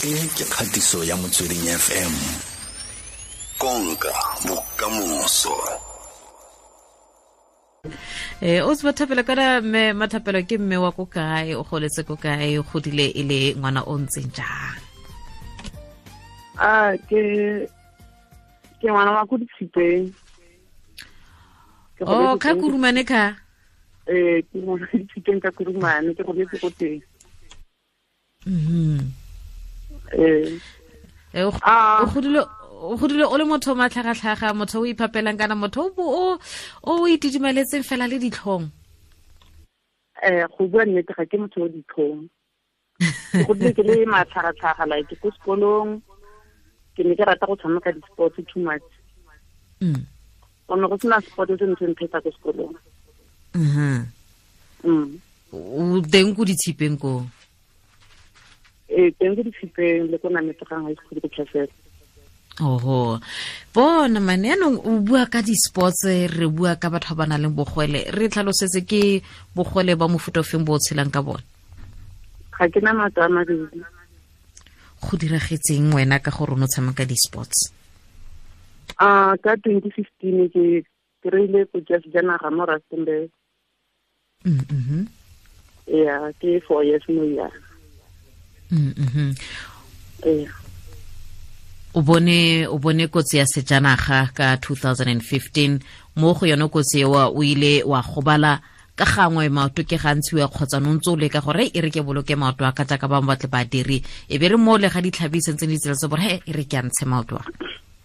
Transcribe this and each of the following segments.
E ke kgatiso ya Motsweding FM. Konka bokamoso. O se Mathapelo, kana mme Mathapelo ke mme wa ko kae, o goletse ko kae, o godile e le ngwana o ntseng jang? A ke ngwana wa ko Ditshipeng. Oh, ka Kurumane ka? Ke ngwana Ditshipeng ka Kurumane, ke goletse ko teng. O godile o le motho o matlhagatlhaga, motho o iphapelang, kana motho o itidimaletseng fela le ditlhong? Go bua nnete ga ke motho o ditlhong. Ke godile ke le matlhagatlhaga, like ko sekolong ke ne ke rata go tshameka di-sports too much. Gonne go sena sport se ntse nthetsa ko sekolong. O teng ko Ditshipeng ko? Teng ko Ditshipeng le ko Nametsegang High School ko Tlhasela. Oho. Bona mane, yaanong o bua ka di-sports, re bua ka batho ba ba nang le bogwele, re tlhalosetse ke bogwele ba mofuta ofeng bo o tshelang ka bone? Ga ke na maoto a mabedi. Go diragetseng wena ka gore o ne o tshameka di-sports? Ka 2015 ke kry-ile kotsi ya sejanaga mo Rustenburg. Yeah, ke 4 years mo ya. O bone kotsi ya sejanaga ka 2015, mo go yone kotsi eo o ile wa gobala ka gangwe maoto ke gantsi wa kgotsa no ntse o leka gore e re ke boloke maoto a ka jaaka bangwe ba tle ba dire, e be re mo le ga ditlhabi sentse di tsela tse gore he e re ke a ntshe maoto a.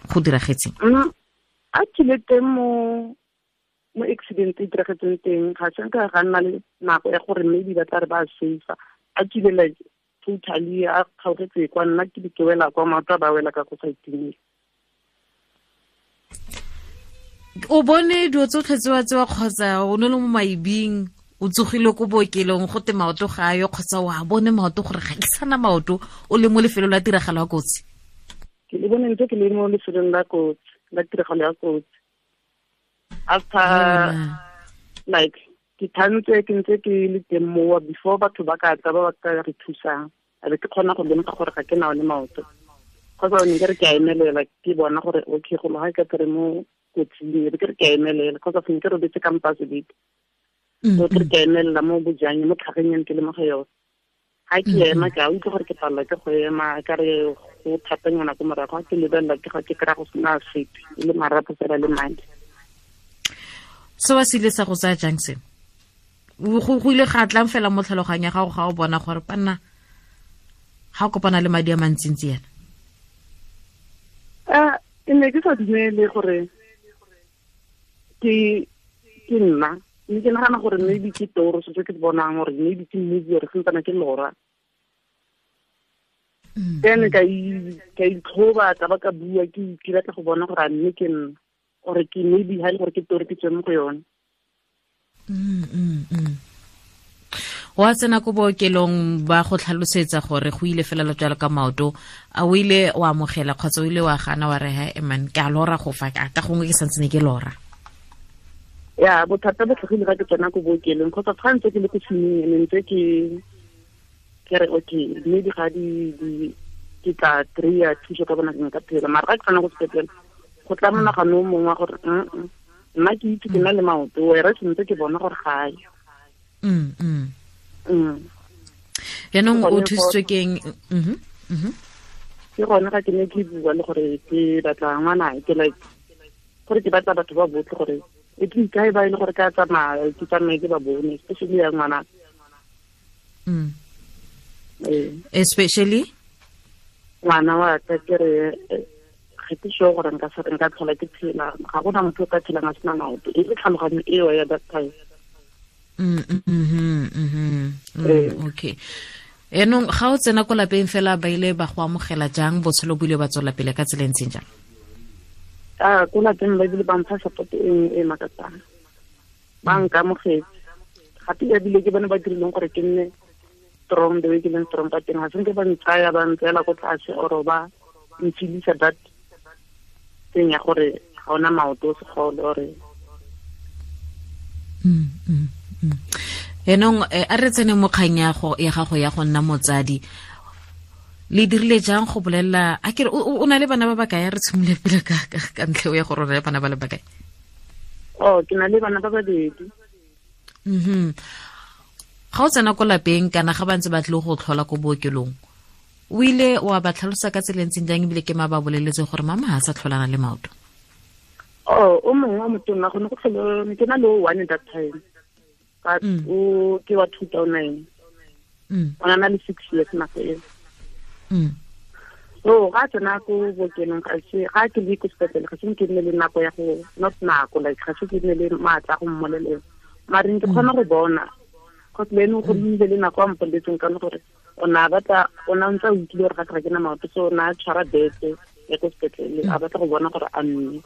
Go diragetseng? A kile teng mo accident e diragetseng teng, ga se nka ga nna le nako ya gore maybe ba tla re ba safe. A kile like totally a kgaogetse kwa nna ke di ke wela kwa maoto a ba wela ka ko sa itumele. O bone dilo tsotlhe tsewa tsewa kgotsa o ne le mo maibing, o tsogile ko bookelong go te maoto ga ayo, kgotsa wa bone maoto gore ga ke sana maoto, o le mo lefelong la tiragalo ya kotsi? Ke le bone ntse ke le mo lefelong la kotsi, la tiragalo ya kotsi. After like ke thantse ke ntse ke le teng mowa before batho ba ka tla ba ba ka re thusang, a be ke kgona go lemoga gore ga ke na one maoto. Kgotsa ne ke re ke a emelela, ke bona gore okay go ga ke tere mo kotsing, e be ke re ke a emelela, kgotsa ne ke robetse ka mpa sebete. So ke re ke a emelela mo bojang, mo tlhageng ke le mo go yone. Ga ke ema, ke a utlwa gore ke palelwa ke go ema, ka re go thatanyana ko morago, ga ke lebelela ke ga ke kry-a go sena sepe, e le marapo fela le madi. Se wa se ile sa go tsaya jang se? Go ile ga tlang fela mo tlhaloganyong ya gago ga o bona gore panna ga o kopana le madi a mantsintsi yana? Ke ne ke sa dumele gore ke nna, mme ke nagana gore maybe ke toro se ke bonang, gore maybe ke movie, gore santsane ke lora. Then ka itlhoba, ka ba ka bua, ke batla go bona gore a mme ke nna, or ke maybe ha e le gore ke toro ke tswe mo go yone. Wa tsena ko bookelong ba go tlhalosetsa gore go ile fela jalo ka maoto, a o ile wa amogela kgotsa o ile wa gana wa re he man ke a lora go fa ka gongwe ke santse ne ke lora? Ya, bothata bo tlhagile ga ke tsena ko bookelong, kgotsa fa ntse ke le ko tshimong, ne ntse ke re okay maybe ga di ke tla kry-a thuso ka bona nka phela, mara ga ke tsena ko sepetlele go tla monagano o mongwe wa gore nna ke itse ke na le maoto, wera ke ntse ke bona gore ga yo. Yaanong o thusitswe ke eng? Ke gone ga ke ne ke bua le gore ke batla ngwana, ke like gore ke batla batho ba botlhe gore e ke ikae ba e le gore ka tsamaya, ke tsamaye ke ba bone, especially ya ngwana. Especially ngwana wa ka, ke re ga ke sure gore nka se nka tlhola ke phela, ga gona motho o ka phelang a sena maoto, e le tlhaloganyo eo ya that time. Okay. Yaanong ga o tsena ko lapeng fela ba ile ba go amogela jang, botshelo bo ile ba tswela pele ka tsela e ntseng jang? Ko lapeng ba ile ba mpha support e makatsang, ba nkamogetse gape ebile ke bone ba dirileng gore ke nne strong the way ke leng strong ka teng. Ga se nke ba ntsaya ba ntseela ko tlase or ba nfilisa that thing ya gore ga ona maoto o segole ore. Yaanong a re tsene mo kgang ya gago ya go nna motsadi. Le dirile jang go bolelela a kere o na le bana ba bakae? Re tshimole pele ka ntlha ya gore o na le bana ba le bakae. Oh, ke na le bana ba babedi. Ga o tsena ko lapeng kana ga ba ntse ba tlile go tlhola ko bookelong, o ile wa ba tlhalosa ka tsela e ntseng jang, ebile ke ma ba boleletse gore mama ga a sa tlholana le maoto? Oh, o mongwe wa motonna gone go tlhole ke na le o one that time. But o ke wa 2009. O na le 6 years nako eo. So ga tsena ko bookelong ga se ga ke le ko sepetlele, ga se ke nne le nako ya go not nako like ga se ke nne le maatla go mmolelela. Mare ke kgona go bona cause le ene go nnile le nako a mpoletseng ka gore o na batla o na ntse a utlwile gore ga ke na maoto, so o na tshwara bete ya ko sepetlele a batla go bona gore a mme.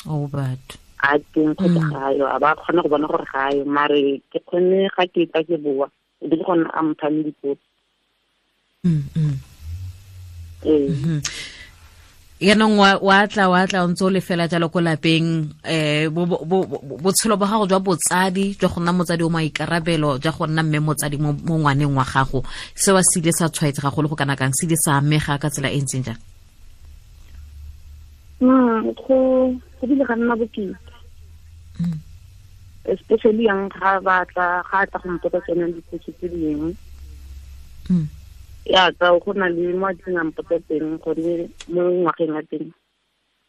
Oh, but a teng kgotsa ga yo, a ba kgona go bona gore ga yo, mare ke kgone ga ke tla ke boa e be ke gone a mphang dipotso. Yaanong wa tla o ntse o le fela jalo ko lapeng, botshelo ba gago jwa botsadi, jwa go nna motsadi o maikarabelo, jwa go nna mme motsadi mo ngwaneng wa gago, seo se ile sa tshwaetsega go le go kana kang, se ile sa amega ka tsela e ntseng jang? Go bile ga nna bokete. Especially yang ga batla ga tla go mpotsa tsone dipotso tse dingwe. Ya ka go na le mo a tleng a mpotsa teng gone mo ngwageng ya teng,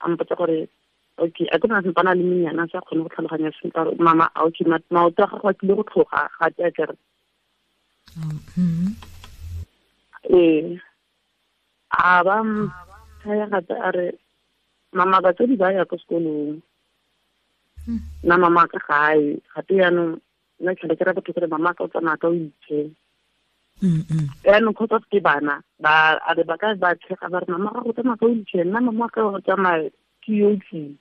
a mpotsa gore okay, a ke na sempana le menyana sa kgone go tlhaloganya sentle gore mama okay, maoto a gago a tlile go tlhoga ga te a kere. Ee, a ba thaya gape a re mama batsadi ba ya ko sekolong, nna mama ka gae gape yaanong nna tlhele ke ra batho kore mama ka o tsamaya ka o itshela. Yaanong kgotsa ke bana ba a re ba ka ba tshega ba re mama ga go tsamaya ka wheelchair, nna mama ka go tsamaya ke yo tlile.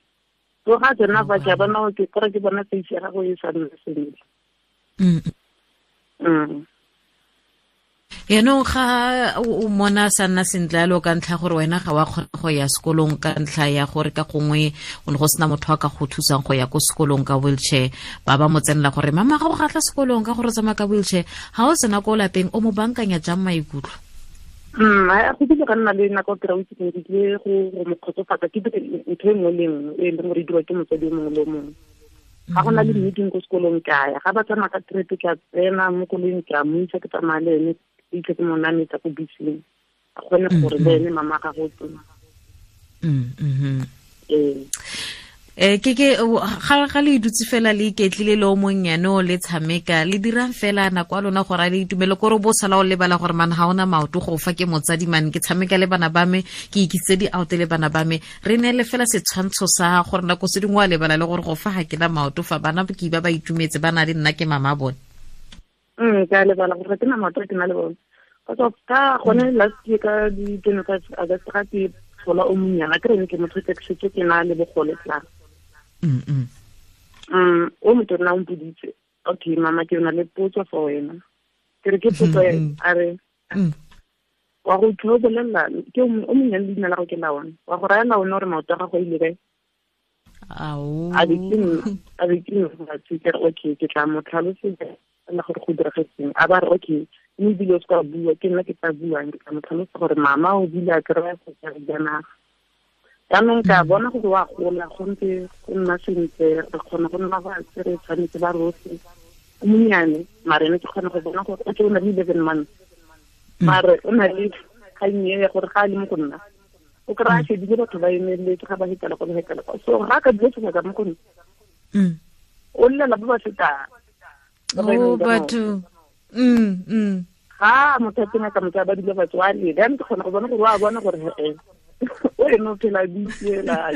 So ga tsena ba ke bona ke kore ke bona face ya gago e sa nna sentle. Yaanong ga o mona sa nna sentle yalo ka ntlha gore wena ga wa kgona go ya sekolong ka ntlha ya gore ka gongwe o ne go sena motho a ka go thusang go ya ko sekolong ka wheelchair, ba ba mo tsenela gore mama ga o gatla sekolong ka gore o tsamaya ka wheelchair, ga o tsena ko lapeng o mo bankanya jang maikutlo? Go bile ga nna le nako ke ra o itse ke tlile go mo kgotsofatsa, ke dire ntho e nngwe le nngwe e leng gore e dirwa ke motsadi o mongwe le o mongwe. Ga go na le meeting ko sekolong ke a ya, ga ba tsamaya ka trip ke a tsena mo koloing ke a mo isa ke tsamaya le ene, ke mo nametsa ko beseng, a kgone gore le ene mama ga go teng. Ke ga le dutse fela le iketlile le o monnyane o le tshameka, le dirang fela nako ya lona gore a le itumele, kore bo sala o lebala gore man ga ona maoto go fa ke motsadi man, ke tshameka le bana ba me, ke ikitse di-out le bana ba me, re neele fela setshwantsho sa gore nako se dingwe wa lebala le gore go fa ga ke na maoto fa bana ke ba ba itumetse ba na le nna ke mama bone. Ke a lebala gore ga ke na maoto ke na le bone. Ka gone last year ka di 25 August ga ke tlhola o monnyana, ke rene ke motho ke setse ke na le bogole tla. O motho o mpoditse, okay mama ke na le potso for wena. Ke re ke potso a re wa go utlwa o bolelela ke o monnyane leina la go ke la one, wa go raya la one gore maoto a gago a ile kae? A be ke nna ke re okay, ke tla mo tlhalosetsa la gore go diragetseng. A ba re okay, mme ebile o se ka bua, ke nna ke tla buang, ke tla mo tlhalosa gore mama o bile a kry-a sejanaga. Jaanong ka bona gore wa gola, go ntse go nna sentle, re kgona go nna fatshe, re tshwanetse ba rotlhe. O monnyane, mare ene ke kgona go bona gore okay, o na le 11 months. Mare o na le kgang e ya gore ga a le mo go nna, o kry-a shebile batho ba emeletse ga ba hetela kwa, ba hetela kwa. So ga a ka dula sebaka mo go nna, o llela ba ba fetang. Oh, batho. Ga motho a teng a ka motho a ba dula fatshe, wa lela. Jaanong ke kgona go bona gore wa bona gore he-e, o ene o phela a itsela.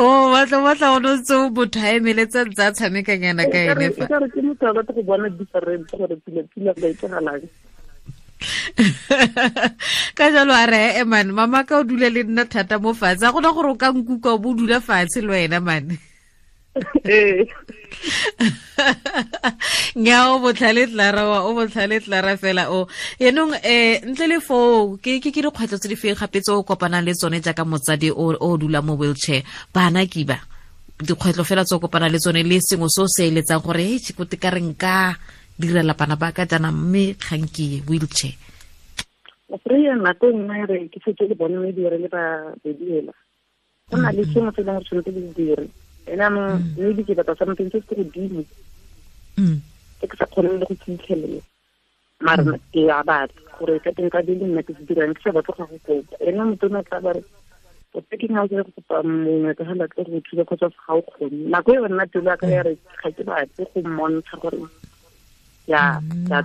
Oh, batla o ntse o motho a emeletse ntse a tshamekanyana ka ene fa. Ekare ke motho a batla go bona different gore pila ba etsagalang. Ka jalo a re, man, mama ka o dule le nna thata mo fatshe, a gona gore o ka nkuka o bo dula fatshe le wena man. Nya o botlhale Clara wa, o botlhale Clara fela o. Yaanong ntle le foo ke ke dikgwetlho tse di feng gape tse o kopanang le tsone jaaka motsadi o dula mo wheelchair, bana ke ba dikgwetlho fela tse o kopanang le tsone le sengwe se o se eletsang gore e tšhikote ka re nka direla bana ba ka jaana mme kgang ke wheelchair. Kry-a nako e nngwe re ke setse le bone mme dire le ba bediela go na le sengwe se e leng gore tshwanetse le dire ene anong maybe ke batla something se se godimo se ke sa kgoneng le go fitlhelela, mare ke a batla gore ka teng ka di le nna ke se dirang, ke sa batle go go kopa. Ene motho o ne tla ba re o ke ga o go kopa mongwe ka ga tle go thusa kgotsa ga o kgone. Nako e nna pelo ya ka ya re ga ke batle go mmontsha gore ya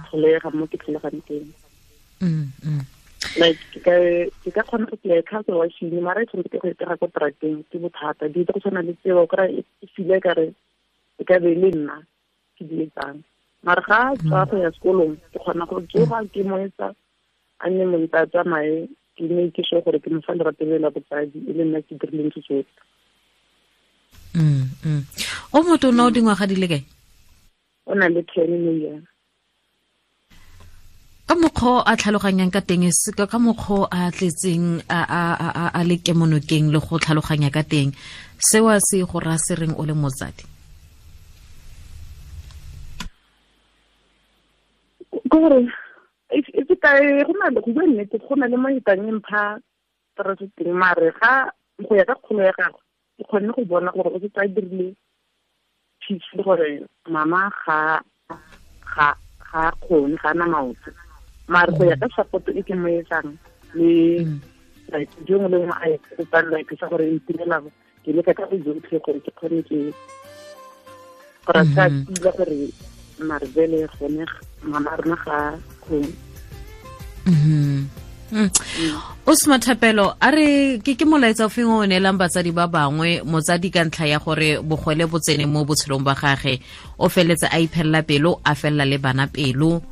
tlholega mo ke tlholegang teng. Like ke ka kgona go play ka go washing mara e tshwanetse ke go itega ko trateng ke bothata di go tshwana le tseo o kry e file ka re e ka be le nna ke di etsang, mara ga tswa go ya sekolong ke kgona go tsoga ke mo etsa a nne monta a tsamaye ke ne ke sure gore ke mo fa lerato le la botsadi e le nna ke dirileng se tsotlhe. O motho o na o dingwaga di le kae? O na le 10 mo. Ka mokgwa a tlhaloganyang ka teng, ka mokgwa a tletseng a le kemonokeng le go tlhaloganya ka teng, seo se go raya se reng o le motsadi? Ke gore e ka go na le go bua nnete, go na le mo etang e mpha stress teng, mare ga go ya ka kgolo ya gagwe ke kgonne go bona gore o setse a dirile peace le gore mama ga kgone, ga ana maoto, mare go ya ka support e ke mo etsang le like jo nngwe le nngwe a e kopang like sa gore e itirela ke leka ka bojotlhe gore ke kgone ke gore a sa tila gore mare bele gone mama rona ga kgone. O Smathapelo, a re ke molaetsa o feng o neelang batsadi ba bangwe, motsadi ka ntlha ya gore bogwele bo tsene mo botshelong ba gage, o feletse a iphelela pelo, a felela le bana pelo,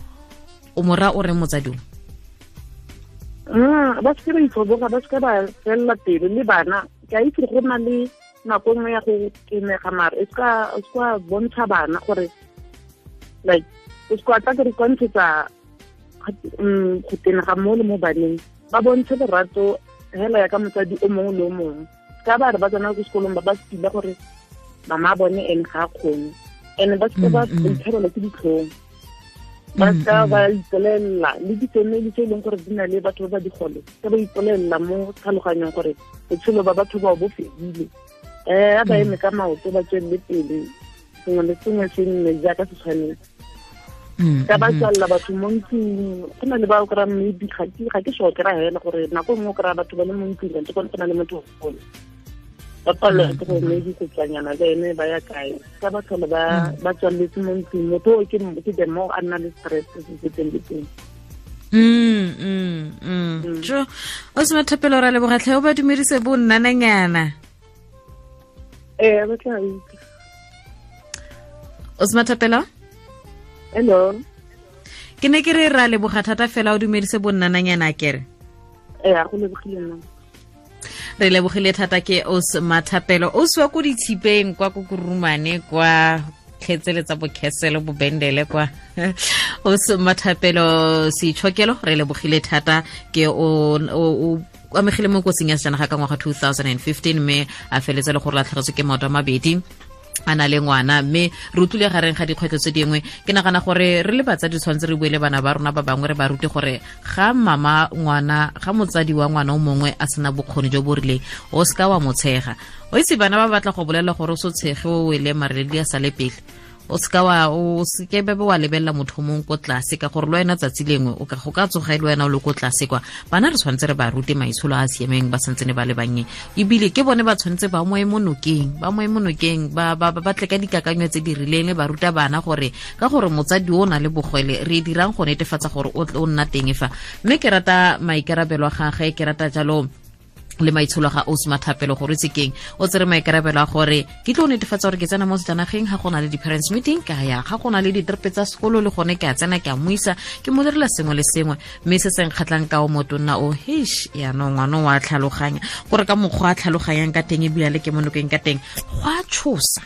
o mora o re motsadi o? Ba se ba itlhoboga, ba se ba felela pelo le bana. Ke a itse go na le nako nngwe ya go tenega, mare e se bontsha bana gore like o se tla ke re kontshetsa go tenega mo le mo baneng, ba bontshe lerato hela ya ka motsadi o mongwe le o mongwe. Ka ba re ba tsena ko sekolong ba ba sepila gore mama bone ene ga a kgone, ene ba seke ba itshwarela ke ditlhong, ba seka ba ipolelela le di-family tse e leng gore di na le batho ba ba digole, ka ba ipolelela mo tlhaloganyong gore botshelo ba batho bao bo fedile. A ba eme ka maoto ba tswelele pele, sengwe le sengwe se nne jaaka se tshwanetse. Ka ba tswalela batho mo ntlong, go na le ba o kry-a maybe ga ke sure kry-a hela gore nako nngwe o kry-a batho ba le mo ntlong kante gone go na le motho gole ba palelwa ke gore maybe go tswanyana le ene ba ya kae, ka ba tlhole ba tswaletse mo ntlong, motho o ke the more a nna le stress se se teng le teng. Jo, o Smathapelo, ra leboga tlhe, o ba dumedise bo nnananyana. Ee, ba tla itse. O Smathapelo? Hello. Ke ne ke re ra leboga thata fela, o dumedise bo nnananyana kere. Ee, go lebogile nna. Re lebogile thata ke o Smathapelo, o swa ko ditshipeng kwa ko Kurumane kwa kgetseletsa bokheselo bobendele kwa. O Smathapelo Seitshokelo, re lebogile thata ke o amegile mo kotsing ya sejanaga ka ngwaga 2015 mme a feletse le gore latlhegetswe ke maoto a mabedi a na le ngwana, mme re utlwile gareng ga dikgwetlho tse dingwe. Ke nagana gore re le batsadi tshwanetse re bue le bana ba rona ba bangwe, re ba rute gore ga mama ngwana, ga motsadi wa ngwana o mongwe a sena bokgoni jo bo rileng, o seka wa mo tshega. O itse bana ba batla go bolela gore o se tshege o wele mareledi a sale pele, o seka wa o seke bebe wa lebelela motho mongwe ko tlase, ka gore le wena tsatsi lengwe o ka go ka tsoga e le wena o le ko tlase kwa. Bana re tshwanetse re ba rute maitsholo a a siameng ba santsene ba le bannye, ebile ke bone ba tshwanetse ba mo emonokeng, ba ba tle ka dikakanyo tse di rileng, ba ruta bana gore ka gore motsadi o na le bogwele re dirang go netefatsa gore o nna teng fa. Mme ke rata maikarabelo a gagwe, ke rata jalo le maitsholo ga o Smathapelo gore itse keng o tsere maikarabelo a gore ke tlo netefatsa gore ke tsena mo sejanageng, ga go na le di-parents meeting ka ya, ga go na le ditrepe tsa sekolo le gone ke a tsena, ke a muisa, ke mo direla sengwe le sengwe. Mme se se nkgatlhang ka o motonna o heish, yaanong ngwana o a tlhaloganya gore ka mokgwa a tlhaloganyang ka teng ebile le ke monokeng ka teng go a tshosa.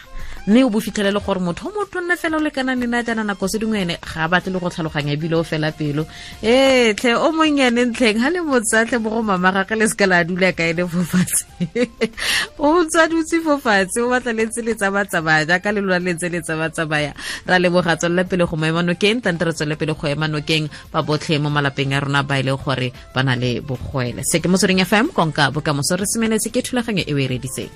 Mme o bo fitlhelele gore motho o motho nne fela o lekanang le na jaana, nako se dingwe ene ga a batle le go tlhaloganya, ebile o fela pelo. Ee tlhe, o monnyane ntlheng ga le motsatlhe mo go mama gage, le seka la dula ka ene fo fatshe. O ntse a dutse fo fatshe, o batla le ntse le tsamatsamaya jaaka le lona le ntse le tsamatsamaya. Ra leboga, tswelela pele go mo ema nokeng. Tante re tswelele pele go ema nokeng ba botlhe mo malapeng a rona ba e leng gore ba na le bogwele. Se ke Motsweding FM, konka bokamoso. Re semeletse ke thulaganyo e o e reditseng.